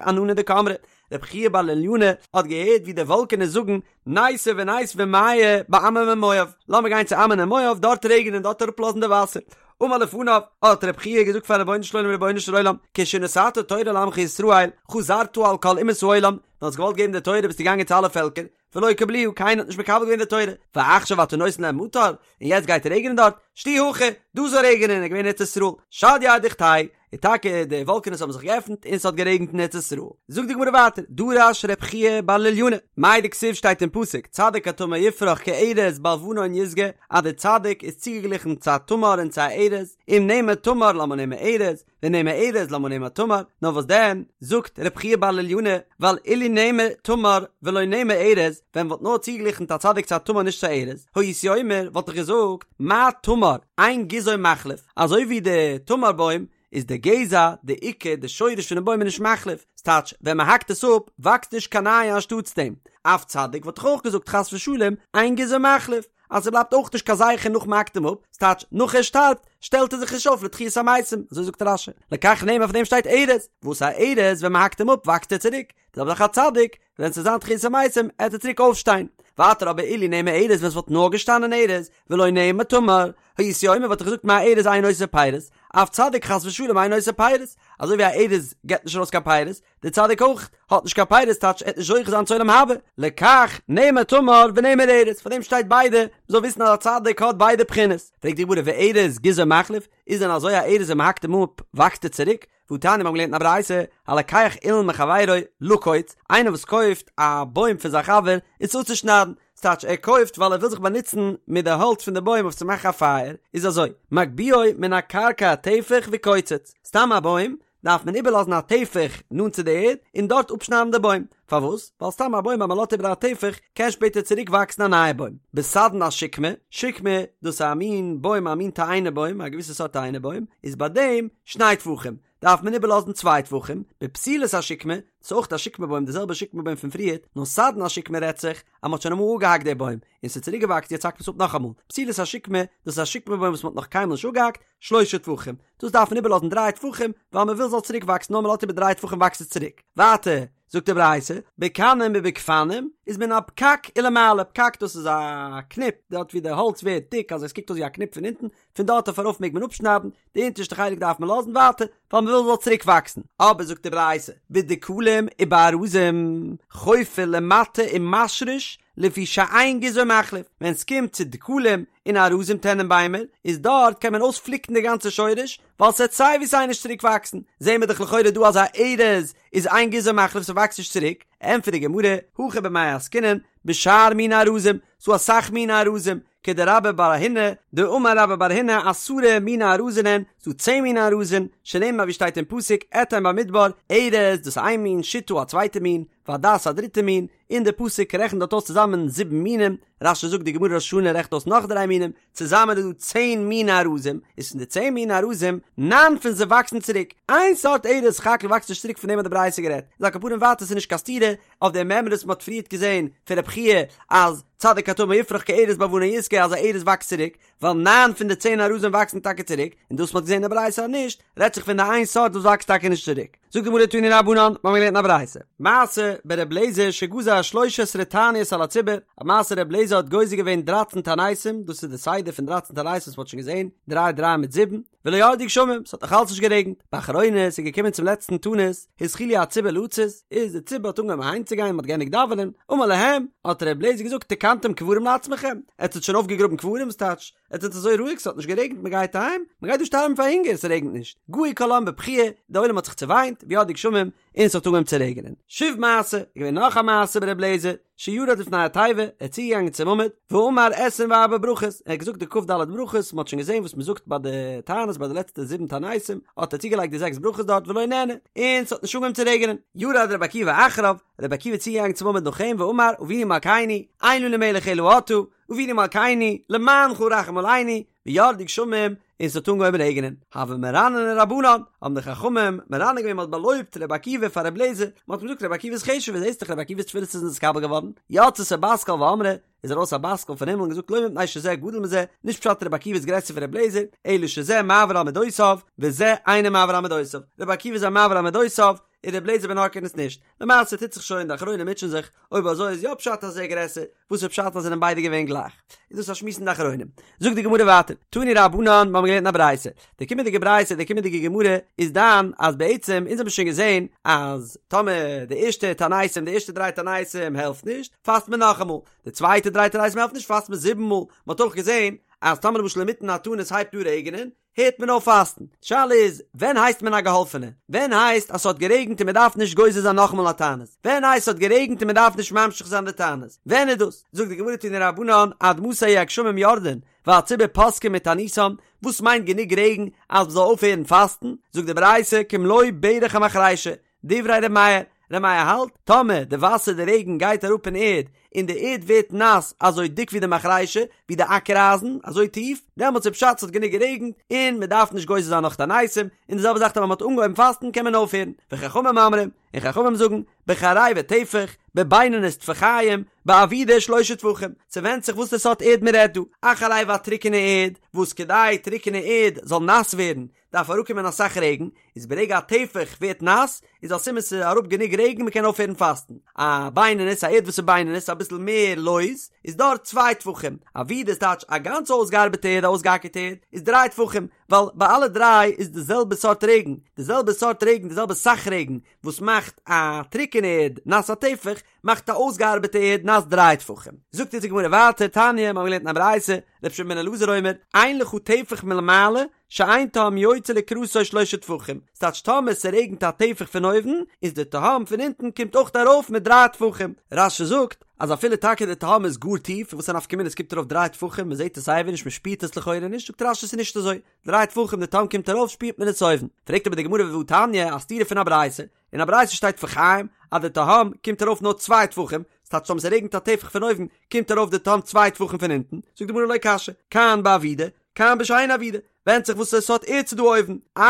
ענני דקאמרי, רב חייא בר לוליינא האט געהערט ווי די וואלקענעס זאגן ניתו וניתבי מיא בעמון ומואב, לאמיר גיין צו עמון און מואב דארט רעגענען דארט אראפלאזן די וואסער. אמר לפניו, האט רב חייא געזאגט פארן רבונו של עולם רבונו של עולם, כשנתת תורה לעמך ישראל, חזרת על כל אומות העולם, ווען האסט געוואלט געבן די תורה ביסטו געגאנגען צו אלע פעלקער, ולא קבלוה, קיינער האט נישט מקבל געווען די תורה, ועכשיו אתה נותן להם מטר, און יעצט גייט רעגענען דארט, שדי הכא, דא זאל רעגענען, איז געווען ארץ ישראל, שדייה אדוכתייהו, און טאקע די וואלקענעס האבן זיך געעפנט און ס'האט גערעגנט אין ארץ ישראל. זאגט די גמרא ווייטער, דרש ר' חייא בר לוליינא, מאי דכתיב שטייט אין פסוק, צדיק כתמר יפרח כארז בלבנון ישגה, אז דער צדיק איז צוגעגליכן צו א תמר און צו א ארז, אם נאמר תמר למה נאמר ארז, ואם נאמר ארז למה נאמר תמר, נאר וואס דען, זאגט ר' חייא בר לוליינא, ווייל אילו נאמר תמר ולא נאמר ארז, ווען מ'וואלט נאר צוגעגליכנט א צדיק צו א תמר נישט צו א ארז, הייתי אומר, וואלט איך געזאגט, מה תמר, אין גזעו מחליף, אזוי ווי די תמר בוים איז די גזע, די עיקר, די שורש פונעם בוים איז נישט מחליף, ס'טייטש, ווען מ'האקט עס אפ, וואקסט נישט קיין נייע אנשטאטס דעם. אף צדיק וואלט איך אויך געזאגט חס ושלום, אין גזעו מחליף, אז ס'בלייבט אויך נישט קיין זכר נאך מ'האקט אים אפ, ס'טייטש, נאך ער שטארבט, שטעלט ער זיך נישט אויף לתחיית המתים, אזוי זאגט רש"י. לכך נאמר אויף דעם שטייט ארז, וואס א ארז ווען מ'האקט אים אפ וואקסט ער צוריק, די זעלבע זאך א צדיק, ווען ס'וועט זיין תחיית המתים עט ער צוריק אויפשטיין. ווייטער אבער אילו נאמר ארז ווען ס'וואלט נאר געשטאנען ארז, ולא נאמר תמר, הייתי אומר וואלט איך געזאגט מה ארז אין עושה פירות, אף צדיק חס ושלום אין עושה פירות, אזוי ווי א ארז געבט נישט ארויס קיין פירות, דער צדיק אויך האט נישט קיין פירות טייטש ער עט נישט זוכה זיין צו עולם הבא, לכך נאמר תמר ונאמר ארז, פאר דעם שטייט ביידע, מ'זאל וויסן אז א צדיק האט ביידע בחינות. פרעגט די גמרא וארז גזעו מחליף, איז דען אזוי א ארז ווען מ'האקט אים אפ וואקסט ער צוריק? והתניא מיר האבן געלערנט אין א ברייתא, הלוקח אילן מחבירו לקוץ, איינער וואס קויפט א בוים פון זיין חבר איז אפצושניידן, ס'טייטש ער קויפט ווייל ער וויל זיך באנוצן מיט די האלץ פון די בוים אויף צו מאכן א פייער, איז אזוי, מגביהו מן הקרקע טפח וקוצץ, סתם א בוים דארף מען איבערלאזן א טפח נאנט צו די ערד און דארט אפשניידן די בוים, פארוואס? ווייל סתם א בוים אז מען לאזט איבער א טפח קען שפעטער צוריק וואקסן א נייע בוים. בסדן השקמה, שקמה, דאס איז א מין בוים א מין תאנה בוים, א געוויסע סארט תאנה בוים, איז ביי דעם שני טפחים, דארף מען איבערלאזן צוויי טפחים, בפתילת השקמה, דאס איז אויך א שקמה בוים די זעלבע שקמה בוים פון פריערט, נאר סדן השקמה רעדט זיך אז מען האט שוין אמאל אפגעהאקט די בוים, און ס'איז צוריק געוואקסן יעצט האקט מען עס אפ נאכאמאל, פתילת השקמה, דאס איז א שקמה בוים וואס מען האט נאך קיינמאל נישט אפגעהאקט, שלשה טפחים, דאס דארף מען איבערלאזן דריי טפחים, ווייל מען וויל ס'זאל צוריק וואקסן נאר מען לאזט איבער דריי טפחים וואקסט עס צוריק. ווייטער זאגט די ברייתא, בקנים ובגפנים איז מן הפקק ולמעלה, פקק דאס איז א קניפ, דארט ווי די האלץ ווערט דיק אז עס קוקט אויס ווי א קניפ פון אונטן, פון דארט אויף ארויף מעג מען אפשניידן, די אונטערשטע חלק דארף מען לאזן ווייטער, ווייל מען וויל ס'זאל צוריק וואקסן. אבער זאגט די ברייתא, בדקלים ובארזים, חופר למטה ומשריש, לפי שאין גזעו מחליף, ווען ס'קומט צו דקלים און ארזים טענענביימער, איז דארט קען מען אויספליקן די גאנצע שורש, ווייל ס'עט סיי ווי סיי נישט צוריק וואקסן, זעהן מיר דאך לכאורה דא אז א ארז איז אין גזעו מחליף ס'וואקסט נישט צוריק, ענטפערט די גמרא, הכא במאי עסקינן, בשאר מיני ארזים, ס'דא אסאך מיני ארזים, כדרבה בר הונא, דאמר רבה בר הונא עשרה מיני ארזין הן, ס'דא צען מיני ארזים, שנאמר ווי שטייט אין פסוק, אתן במדבר, ארז, דאס איז איין מין, שטה א צווייטע מין. והדס א דריטע מין, און די פסוק רעכנט דארט אויס צוזאמען זיבן מינים, רש"י זאגט די גמרא ראש השנה רעכנט אויס נאך דריי מינים, צוזאמען איז דא צען מיני ארזים, איז פון די צען מיני ארזים, ניין פון זיי וואקסן צוריק, איין סארט ארז סך הכל וואקסט נישט צוריק פון דעם האט די ברייתא גערעדט, איז על כל פנים ווייטער ס'איז נישט קיין סתירה אויף די מימרא וואס מ'האט פריערט געזען פון רב חייא אז צדיק כתמר יפרח כארז בלבנון ישגה אז א ארז וואקסט צוריק, ווייל ניין פון די צען ארזים וואקסן טאקע צוריק, און דאס מ'האט געזען אין די ברייתא אז נישט, רעדט זיך פון די איין סארט וואס וואקסט טאקע נישט צוריק. זאגט די גמרא תנו רבנן, מ'האמיר געלערנט אין א ברייתא, מעשה בר' אליעזר שגזר שלש עשרה תעניות על הציבור, א מעשה ר' אליעזר האט גוזר געווען דרייצן תעניתים, דאס איז די סדר פון דרייצן תעניתים וואס מ'האט שוין געזען, דריי דריי מיט זיבן, ולא ירדו גשמים, ס'האט נאך אלץ נישט גערעגנט, באחרונה, ס'איז געקומען צום לעצטן תענית, התחילו הציבור לצאת, איז די ציבור האט אנגעהויבן אהיימצוגיין, מ'האט געענדיגט דאווענען, אמר להם, האט ר' אליעזר געזאגט, תקנתם קברים לעצמכם, עטס האט שוין אויפגעגראבן קברים, ס'טייטש, עטס זענט אזוי רואיג, ס'האט נישט גערעגנט, מ'גייט אהיים, מ'גייט דא שטארבן פאר הונגער, ס'רעגנט נישט, געו כל העם בבכיה, די עולם האט זיך צעוויינט, וירדו גשמים, און ס'האט אנגעהויבן צו רעגענען. שוב מעשה, איז געווען נאך א מעשה בר' אליעזר, שירד לפני התיבה, ער איז צוגעגאנגען צום עמוד, ואמר עשרים וארבע ברכות, ער האט געזאגט די כ"ד ברכות, מ'האט שוין געזען וואס מ'זאגט ביי די תענית ביי די לעצטע זיבן תעניתים, האט ער צוגעלייגט די זעקס ברכות דארט ולא נענה, און ס'האט נישט אנגעהויבן צו רעגענען. ירד רבי עקיבא אחריו, רבי עקיבא איז צוגעגאנגען צום עמוד נאך אים, ואמר, אבינו מלכנו, אין לנו מלך אלא אתה, אבינו מלכנו, למענך רחם עלינו, וירדו גשמים, און ס'האט אנגעהויבן רעגענען. הוו מרנני רבנן, האבן די חכמים מרנן געווען, מ'האט באלויבט רבי עקיבא פאר רבי אליעזר, מ'האט אים געזאגט רבי עקיבא איז חשוב'ער, זעסט דאך רבי עקיבא'ס תפילות איז נתקבל געווארן, יצתה בת קול ואמרה, איז ארויס א בת קול פון הימל און געזאגט לא מפני שזה גדול מזה, נישט פשט רבי עקיבא איז גרעסער פון רבי אליעזר, אלא שזה מעביר על מדותיו, וזה אינו מעביר על מדותיו, רבי עקיבא איז א מעביר על מדותיו, און רבי אליעזר בן הורקנוס נישט. למעשה טוט זיך שוין, די אחרונים מוטשען זיך, אויב אזוי איז יא פשט אז ער איז גרעסער, וואס איז פשט אז זענען ביידע געווען גלייך? איז דאס א שמועס אין די אחרונים. זאגט די גמרא ווייטער, תנו רבנן, מיר האבן געלערנט אין א ברייתא, די קומענדיגע ברייתא, די קומענדיגע גמרא, איז דן אז בעצם, אונז האבן שוין געזען אז טאמער די ערשטע תעניתים, די ערשטע דריי תעניתים העלפט נישט, פאסט מען נאכאמאל, די צווייטע דריי תעניתים העלפט נישט, פאסט מען זיבן מאל, מען האט אויך געזען אז טאמער למשל אינמיטן א תענית הייבט אן רעגענען, הערט מען אויף פאסטן. די שאלה איז, ווען הייסט מען א געהאלפענע? ווען הייסט אז ס'האט גערעגנט און מ'דארף נישט גוזר זיין נאכאמאל א תענית? ווען הייסט ס'האט גערעגנט און מ'דארף נישט ממשיך זיין די תענית? ווען איז דאס? זאגט די גמרא תנו רבנן עד מתי יהו הגשמים יורדין והציבור פוסקין מתעניתם, וואס מיינט גענוג רעגן אז מ'זאל אויפהערן פאסטן? זאגט די ברייתא כמלוא ברך המחרישה, דברי ר' מאיר, ר' מאיר האלט, טאמער די וואסער די רעגן גייט אראפ אין ערד, און די ערד ווערט נאס אזוי דיק ווי די מחרישה, ווי די אקער אייזן, אזוי טיף, דעמאלטס איז פשט ס'האט גענוג גערעגנט, און מ'דארף נישט גוזר זיין נאך תעניתים, און די זעלבע זאך טאמער מ'האט אנגעהויבן פאסטן קען מען אויפהערן, וחכמים אומרים, און חכמים זאגן, בחרבה טפח, בבינונית טפחיים, בעבידה שלשה טפחים, ס'ווענדט זיך וואס די סארט ערד מ'רעדט דא, א חרבה א טרוקענע ערד, וואס כדי טרוקענע ערד זאל נאס ווערן, דארף אראפקומען אסאך רעגן, איז ברגע א טפח ווערט נאס, איז א סימן ס'איז אראפ גענוג רעגן מ'קען אויפהערן פאסטן. א בינונית, א ערד וואס איז בינונית, אביסל מער לויז, איז דארט צוויי טפחים. עבידה איז טייטש א גאנץ אויסגעארבעטע ערד, א אויסגעאקערטע ערד, איז דריי טפחים, ווייל ביי אלע דריי איז די זעלבע סארט רעגן, די זעלבע סארט רעגן, די זעלבע סאך רעגן, וואס מאכט א טרוקענע ערד נאס א טפח, מאכט א אויסגעארבעטע ערד נאס דריי טפחים. זאגט אונז די גמרא ווייטער, תניא, מ'האט געלערנט אין א ברייתא, רבי שמעון בן אלעזר אומר, אין לך טפח מלמעלה, שאין תהום יוצא לקראתו שלשה טפחים, ס'טייטש טאמער ס'רעגנט א טפח פון אויבן, איז די תהום פון אונטן קומט אויך ארויף מיט דריי טפחים. רש"י זאגט, אז אפילו טאקע די תהום איז גאר טיף, וואס א נפקא מינה ס'קומט ארויף דריי טפחים, מ'זעט עס סייווי נישט מ'שפירט עס לכאורה נישט, זאגט רש"י ס'איז נישט אזוי, דריי טפחים די תהום קומט ארויף שפירט מען עס אויבן. פרעגט אבער די גמרא והתניא, א סתירה פון א ברייתא, אין א ברייתא שטייט טפחיים אז די תהום קומט ארויף נאר צוויי טפחים, ס'טייטש טאמער ס'רעגנט א טפח פון אויבן קומט ארויף די תהום צוויי טפחים פון אונטן, זאגט די גמרא לא קשיא, כאן בעבידה, כאן בשאינה עבידה, ווענדט זיך וואס סארט ערד ס'דא אויבן, א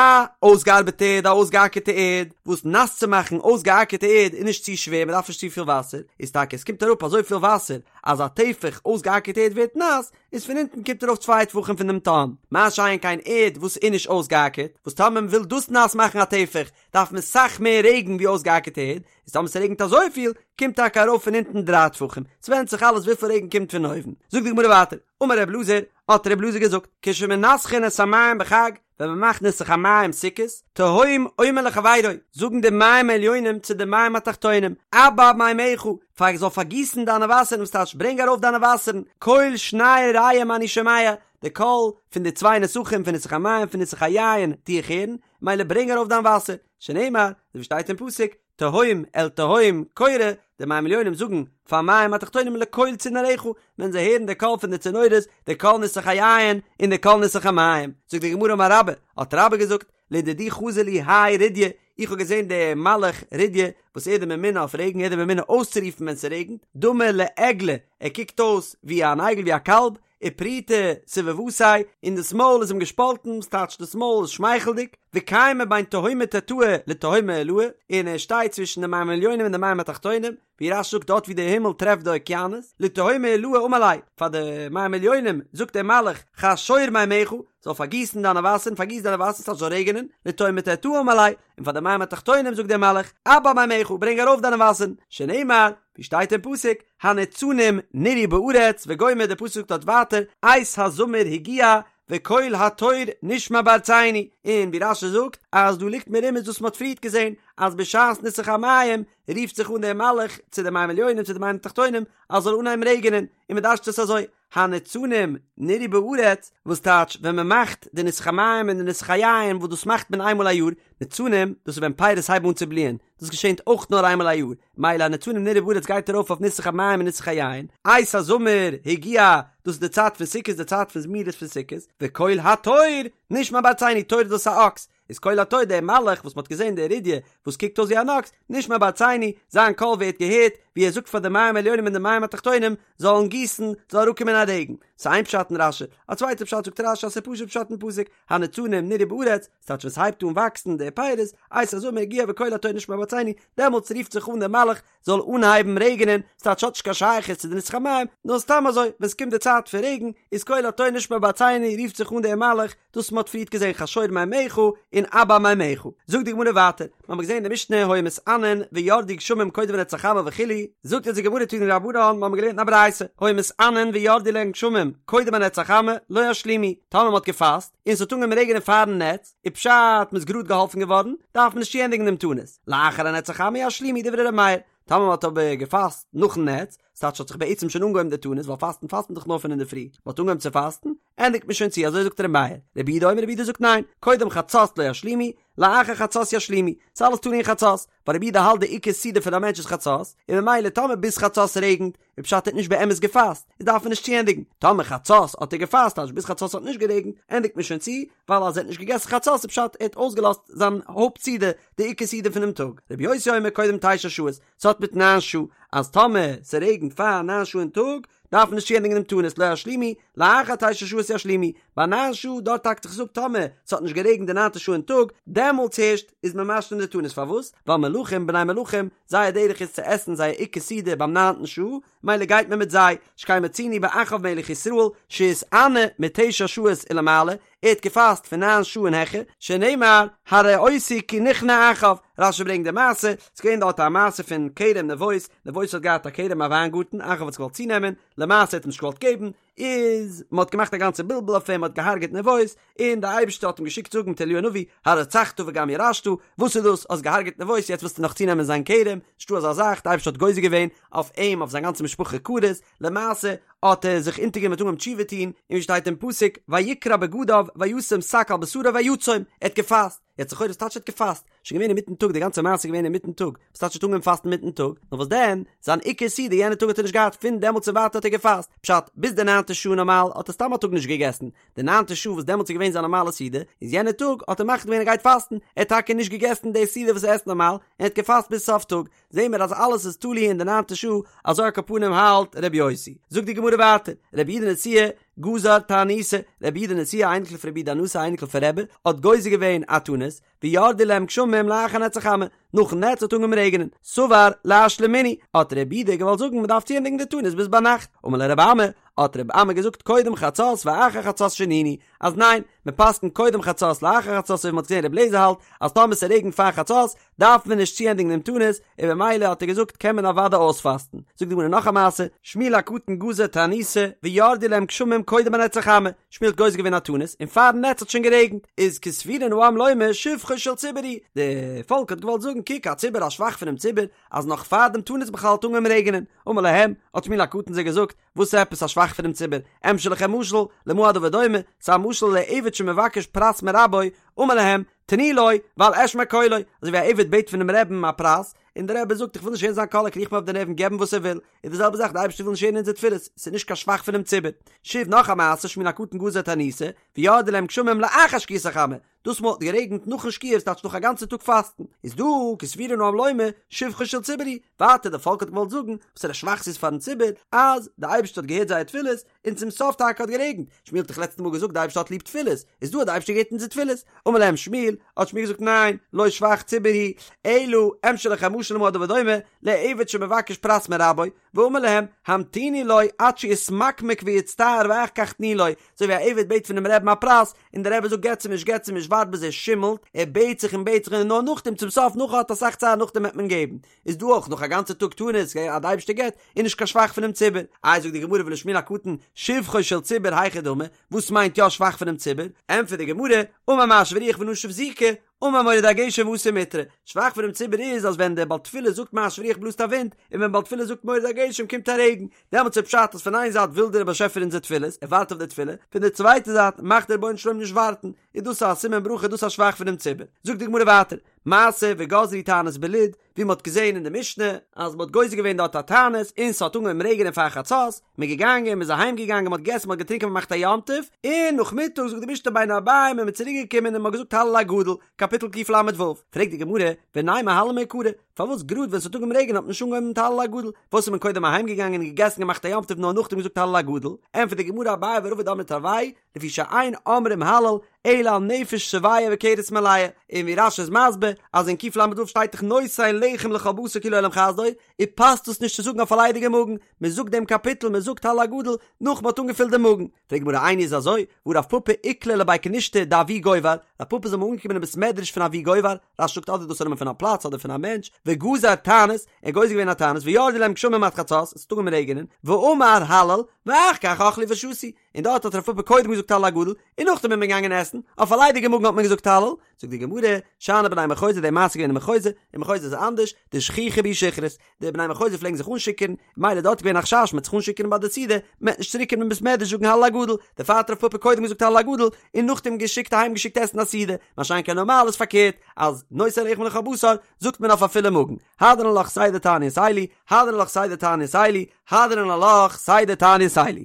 אויסגעארבעטע ערד, א אויסגעאקערטע ערד, וואס נאס צו מאכן אויסגעאקערטע ערד איז נישט צו שווער מ'דארף נישט צופיל וואסער, איז טאקע עס קומט אראפ אזויפיל וואסער אז א טפח אויסגעאקערטע ערד ווערט נאס, איז פון אונטן קומט ארויף צוויי טפחים פון דעם תהום, מה שאין כן ערד וואס איז נישט אויסגעאקערט, וואס טאמער מ'וויל דאס נאס מאכן א טפח דארף מען סאך מער רעגן ווי אויסגעאקערטע ערד, איז טאמער ס'רעגנט אזויפיל, קומט טאקע ארויף פון אונטן דריי טפחים, ס'ווענדט זיך אלעס וויפיל רעגן קומט פון אויבן. זאגט די גמרא ווייטער, אמר ר' אלעזר, האט ר' אלעזר געזאגט, כשמנסכין את המים בחג, ווען מ'מאכט ניסוך המים סוכות, תהום אומר לחבירו, זאגן די מים העליונים צו די מים התחתונים, אבע מימיך, פאר זאל פארגיסן דיינע וואסערן, וואס טייטש ברענג ארויף דיינע וואסערן, קול שני רעים אני שומע, די קול פון די צוויי נסכים פון ניסוך המים פון ניסוך היין טו איך הערן, מילא ברענג ארויף דיין וואסער, שנאמר, אזוי ווי שטייט אין פסוק, תהום אל תהום קורא, די מים עליונים זאגן פאר מים התחתונים לקול צינוריך, ווען זיי הערן די קול פון די צינורות, די קול ניסוך היין און די קול ניסוך המים. זאגט די גמרא אמר רבה, האט רבה געזאגט, לדידי חזי לי האי רידיא, איך האב געזען די מלאך רידיא וואס ער איז די ממונה אויף רעגן, ער איז די ממונה אויסצורופן ווען ס'רעגנט, דמי לעגלא, ער קוקט אויס ווי אן עגל ווי א קאלב, ופריטא סביבתיה, און דאס מויל איז אים געשפאלטן, ס'טייטש דאס מויל איז שמייכלדיג, וקיימא בין תהומא תתאה לתהומא עילאה, און ער שטייט צווישן די מים עליונים און די מים התחתונים, ווי רש"י זאגט דארט ווי דער הימל טרעפט די אוקיינוס, לתהומא עילאה אמר ליה, פאר די מים עליונים זאגט דער מלאך, חשור מימיך, זאל פארגיסן דיינע וואסערן, פארגיס דיינע וואסערן ס'טייטש זאל רעגענען, לתהומא תתאה אמר ליה, און פאר די מים התחתונים זאגט דער מלאך, אבע מימיך, ברענג ארויף דיינע וואסערן, שנאמר, ווי שטייט אין פסוק, הניצנים נראו בארץ וגומר, דער פסוק זאגט דארט ווייטער, עת הזמיר הגיע וקול התור נשמע בארצנו, און ווי רש"י זאגט אז דא ליגט מרומז וואס מען האט פריערט געזען, אז בשעת ניסוך המים רופט זיך אן דער מלאך צו די מים עליונים צו די מים תחתונים אז זאל אנהייבן רעגענען, און מען דרש'ט עס אזוי, הניצנים נראו בארץ, וואס טייטש ווען מען מאכט די ניסוך המים און די ניסוך היין וואס דאס מאכט מען איינמאל א יאר, ניצנים דאס איז ווען פירות הייבן אן צו בליען, דאס געשענט אויך נאר איינמאל א יאר, מילא הניצנים נראו בארץ גייט ארויף אויף ניסוך המים און ניסוך היין, עת הזמיר הגיע, דאס איז די צייט פון סוכות די צייט פון זמירות פון סוכות, וקול התור נשמע בארצינו, תור איז דאס א אקס, איז קול התור דער מלאך וואס מ'האט געזען דער רידיא וואס קוקט אויס ווי אן אקס, נשמע בארצינו, זיין קול ווערט געהערט ווי ער זאגט פאר די מים עליונים און די מים התחתונים זאלן גיסן, זאל אראפקומען א רעגן. ס'איז איין פשט אין רש"י, א צווייטע פשט זאגט רש"י אז ס'איז פשוט פשט אין פסוק, הניצנים נראו בארץ, ס'טייטש ווען ס'הייבט אן וואקסן די פירות, עת הזמיר הגיע וקול התור נשמע בארצינו, דעמאלטס רופט זיך אן דער מלאך זאל אנהייבן רעגענען, ס'טייטש ס'האט נישט קיין שייכות צו די ניסוך המים, נאר סתם אזוי, ווען ס'קומט די צייט פון רעגן, איז קול התור נשמע בארצינו רופט זיך אן דער מלאך, דאס מ'האט פריערט געזען חשור מימיך און אבע מימיך. זאגט די גמרא ווייטער, מ'האמיר געזען אין די משנה היו מתענין וירדו גשמים קודם לנץ החמה וכו', זאגט אונז די גמרא תנו רבנן, מ'האמיר געלערנט אין א ברייתא, היו מתענין וירדו להן גשמים קודם הנץ החמה, לא ישלימו, טאמער מ'האט געפאסט, און ס'האט אנגעהויבן רעגענען פארן נץ, איז פשט מ'איז גראד געהאלפן געווארן, דארף מען נישט צוענדיגן דעם תענית, לאחר הנץ החמה ישלימו דברי ר' מאיר, טאמער מ'האט אבער געפאסט נאכן נץ, ס'טייטש ס'האט זיך בעצם שוין אנגעהויבן די תענית, ווייל פאסטן פאסט מען דאך נאר פון אינדערפרי, מ'האט אנגעהויבן צו פאסטן, ענדיגט מען שוין צו, אזוי זאגט ר' מאיר, רבי יהודה אומר רבי יהודה זאגט ניין, קודם חצות לא ישלימו, לאחר חצות ישלימו, ס'איז אלעס תלוי אין חצות, ווייל רבי יהודה האלט די עיקר סעודה פון א מענטש איז חצות, און ממילא טאמער ביז חצות רעגנט, איז פשט ער האט נישט באמת געפאסט, איז דארף מען נישט צוענדיגן, טאמער חצות האט ער געפאסט טייטש ביז חצות האט נישט גערעגנט, ענדיגט מען שוין צו, ווייל אז ער האט נישט געגעסן חצות איז פשט ער האט אויסגעלאזט זיין הויפט סעודה, די עיקר סעודה פונעם טאג. רבי יוסי אומר קודם תשע שעות, ס'האט מיט ניין שעה, אז טאמער ס'רעגנט פאר ניין שעה אין טאג, דארף מען נישט צוענדיגן דעם תענית, לא ישלימו, לאחר תשע שעות ישלימו, ביי ניין שעה דארט האקט זיך עס אפ טאמער ס'האט נישט גערעגנט די ניינטע שעה אין טאג, דעמאלטס הערשט איז מען משלים די תענית, פארוואס? ווייל מלכים בני מלכים, זייער דרך איז צו עסן זייער עיקר סעודה ביים ניינטן שעה, מילא גייט מען מיט זיי, שכן מצינו באחאב מלך ישראל שהתענה מתשע שעות ולמעלה, ער האט געפאסט פון ניין שעה און העכער, שנאמר הרעותי כי נכנע אחאב, רש"י ברענגט די מעשה, ס'איז געווען דארט א מעשה פון כרם נבות, נבות האט געהאט א כרם א וויינגארטן, אחאב האט עס געוואלט צונעמען, למעשה האט אים נישט געוואלט געבן, איז מען האט געמאכט א גאנצע בלבול אויף אים, מען האט געהארגעט נבות, און די אייבערשטער האט אים געשיקט זאגן מיט אליהו הנביא, הרצחת וגם ירשת, וואס איז דאס, האסט געהארגעט נבות, יעצט ווילסטו נאך צונעמען זיין כרם, נישטא אזא זאך, די אייבערשטער האט גוזר געווען אויף אים, אויף זיין גאנצע משפחה כרת, למעשה האט ער זיך אונטערגענומען האט אנגעהויבן תשובה טון, און ווי שטייט אין פסוק, ויקרע בגדיו וישם שק על בשרו ויצום, ער האט געפאסט, יעצט לכאורה וואס טייטש ער האט געפאסט? שוין געווען אינמיטן טאג, די גאנצע מעשה איז געווען אינמיטן טאג, וואס טייטש ער האט אנגעהויבן פאסטן אינמיטן טאג? נאר וואס דען, זיין עיקר סעודה יענע טאג האט ער נישט געהאט, פון דעמאלטס און ווייטער האט ער געפאסט, פשט, ביז די ניינטע שעה נארמאל האט ער סתם א טאג נישט געגעסן, די ניינטע שעה וואס דעמאלטס איז געווען זיין נארמאלע סעודה, איז יענע טאג האט ער מחליט געווען ער גייט פאסטן, ער האט טאקע נישט געגעסן די סעודה וואס ער עסט נארמאל, און ער האט געפאסט ביז סוף טאג, זעהן מיר אז אלעס איז תלוי אין די ניינטע שעה, אזוי על כל פנים האלט ר' יוסי. זאגט די גמרא ווייטער, רבי יהודה נשיאה גזר תעניתא, רבי יהודה נשיאה אייניקל פון רבי יהודה הנשיא אייניקל פון רבי, האט גוזר געווען א תענית, וירדו להם גשמים לאחר נץ החמה, נאכן נץ האט אנגעהויבן רעגענען, סבר לאשלומינהו, האט רבי יהודה געוואלט זאגן מען דארף צוענדיגן די תענית ביז ביינאכט, אמר ליה רבי אמי, האט רבי אמי געזאגט קודם חצות ואחר חצות שנינו, אז ניין, מען פסק'נט קודם חצות לאחר חצות אזוי ווי מען האט געזען רבי אליעזר האלט אז טאמער ס'רעגנט פאר חצות דארף מען נישט צוענדיגן דעם תענית, און במילא האט ער געזאגט קען מען אוודאי אויספאסטן. זאגט די גמרא נאך א מעשה, שמואל הקטן גזר תעניתא וירדו להם גשמים קודם הנץ החמה, שמואל האט גוזר געווען א תענית און פארן נץ האט שוין גערעגנט, איז כסבורין העם לומר שבחו של ציבור הוא, די פאלק האט געוואלט זאגן קוק א ציבור א שבח פונעם ציבור אז נאך פאר דעם תענית בכלל האט אנגעהויבן רעגענען, אמר להם, האט שמואל הקטן זיי געזאגט, וואס עפעס א שבח פונעם ציבור? אמשול לכם משל, למה הדבר דומה, ס'איז א משל לעבד שמבקש פרס מרבו, אמר להם, תנו לו, ואל אשמע קולו, אזוי ווי א עבד בעט פונעם רעבן א פרס, און דער רבי זאגט איך וויל נישט הערן זיין קול ער קריכט מיר אויף די נערוון געב אים וואס ער וויל, איז די זעלבע זאך די אייבערשטער וויל נישט הערן אונזער תפילות, ס'איז נישט קיין שבח פונעם ציבור. שוב נאך א מעשה, שמואל הקטן גזר תעניתא, וירדו להם גשמים לאחר שקיעת החמה, דאס מאל האט גערעגנט נאכן שקיעה ס'טייטש נאך א גאנצע טאג פאסטן, איז דא כסבורין העם לומר שבחו של ציבור הוא, ווייטער די פאלק האט געוואלט זאגן וואסערע שבח ס'איז פארן ציבור אז די אייבערשטער האט געהערט זייער תפילות און צום סוף טאקע האט גערעגנט, שמואל האט דאך לעצטע מאל געזאגט די אייבערשטער האט ליב תפילות, איז דא האט די אייבערשטער געהערט אונזער תפילות, אמר להם שמואל, האט שמואל געזאגט ניין, לא שבח ציבור הוא, אלא אמשול לכם משל למה הדבר דומה, לעבד שמבקש פרס מרבו, ואמר להם, המתינו לו עד שיתמקמק ויצטער ואחר כך תנו לו, אזוי ווי א עבד בעט פונעם רעבן א פרס, און דער רבי זאגט געטס אים נישט געטס אים נישט ווארט ביז ער שימלט, ער בעט זיך און בעט זיך און נאר נאכדעם צום סוף נאך ער האט אסאך צער נאכדעם וועט מען געבן, איז דא אויך נאך א גאנצע טאג תענית אז די אייבערשטער געבט, איז נישט קיין שבח פונעם ציבור. איי זאגט די גמרא ולשמואל הקטן שבחו של ציבור היכי דמי, וואס מיינט יא שבח פונעם ציבור? ענטפערט די גמרא, אמר משיב הרוח ונשב זיקא, אמר מוריד הגשם ואתא מיטרא, שבח פונעם ציבור איז אז ווען דער בעל תפילה זאגט משיב הרוח בלאזט א ווינט, און ווען בעל תפילה זאגט מוריד הגשם קומט א רעגן, דעמאלטס איז פשט אז פון איין זייט וויל דער באשעפער אונזער תפילות, ער ווארט אויף די תפילה, פון די צווייטע זייט מאכט דער רבונו של עולם נישט ווארטן, איז דאס א סימן ברכה דאס א שבח פונעם ציבור. זאגט די גמרא ווייטער, מעשה וגזרו תענית בלוד, ווי מ'האט געזען אין די משנה אז מ'האט גוזר געווען דארט א תענית און ס'האט אנגעהויבן רעגענען פאר חצות, מ'איז געגאנגען, מ'איז אהיים געגאנגען, מ'האט געגעסן, מ'האט געטרינקען, מ'האט געמאכט א יום טוב, און נאכמיטאג זאגט די משנה בין הערבים איז מען צוריק געקומען און מ'האט געזאגט הלל הגדול, קאפיטל קל"ו, פרעגט די גמרא, ונימא הלל מעיקרא, פארוואס גראד ווען ס'האט אנגעהויבן רעגענען האט מען נישט אנגעהויבן מיט הלל הגדול, פארוואס איז מען קודם אהיים געגאנגען און געגעסן געמאכט א יום טוב נאר נאכדעם געזאגט הלל הגדול, ענטפערט די גמרא אביי ורבא דאמרי תרוייהו, לפי שאין אומרים הלל אלא על נפש שבעה וכרס מלאה, און ווי רש"י איז מסביר אז אין קל"ו שטייט דאך נותן לחם לכל בשר כי לעולם חסדו, און פאסט דאס נישט צו זאגן אויף א ליידיגע מאגן, מען זאגט דעם קאפיטל מען זאגט הלל הגדול נאך מען האט אנגעפילט דעם מאגן. פרעגט די גמרא איני איז אזוי, והא רב פפא איקלע לבי כנישתא דאבי גובר, רב פפא איז אמאל אנגעקומען אין בית מדרש פון אבי גובר, רש"י זאגט אדער דאס איז א נאמען פון א פלאץ אדער פון א מענטש, וגזר תענית, ער האט גוזר געווען א תענית וירדו להם גשמים עד חצות, עס האט אנגעהויבן רעגענען, ואמר הלל, ואחר כך אכלו ושתו, און דארט האט רב פפא קודם געזאגט הלל הגדול, און נאכדעם איז מען געגאנגען עסן, אויף א ליידיגע מאגן האט מען געזאגט הלל, זאגט די גמרא, שאני בני מחוזא די מעשה איז געווען אין מחוזא, אין מחוזא איז אנדערש, דשכיחי בהו שכרות, די בני מחוזא פלעגן זיך אנשיכור'ן, מילא דארט איז געווען א חשש מ'וועט זיך אנשיכור'ן ביי די סעודה, מ'וועט נישט צוריק קומען אין בית מדרש זאגן הלל הגדול, דערפאר האט רב פפא קודם געזאגט הלל הגדול, און נאכדעם געשיקט אהיים געשיקט עסן א סעודה, מה שאין כן נארמאל איז פארקערט, אז נותן לחם לכל בשר זאגט מען אויף א פולע מאגן, הדרן עלך סדר תעניות אלו, הדרן עלך סדר תעניות אלו, הדרן עלך סדר תעניות אלו.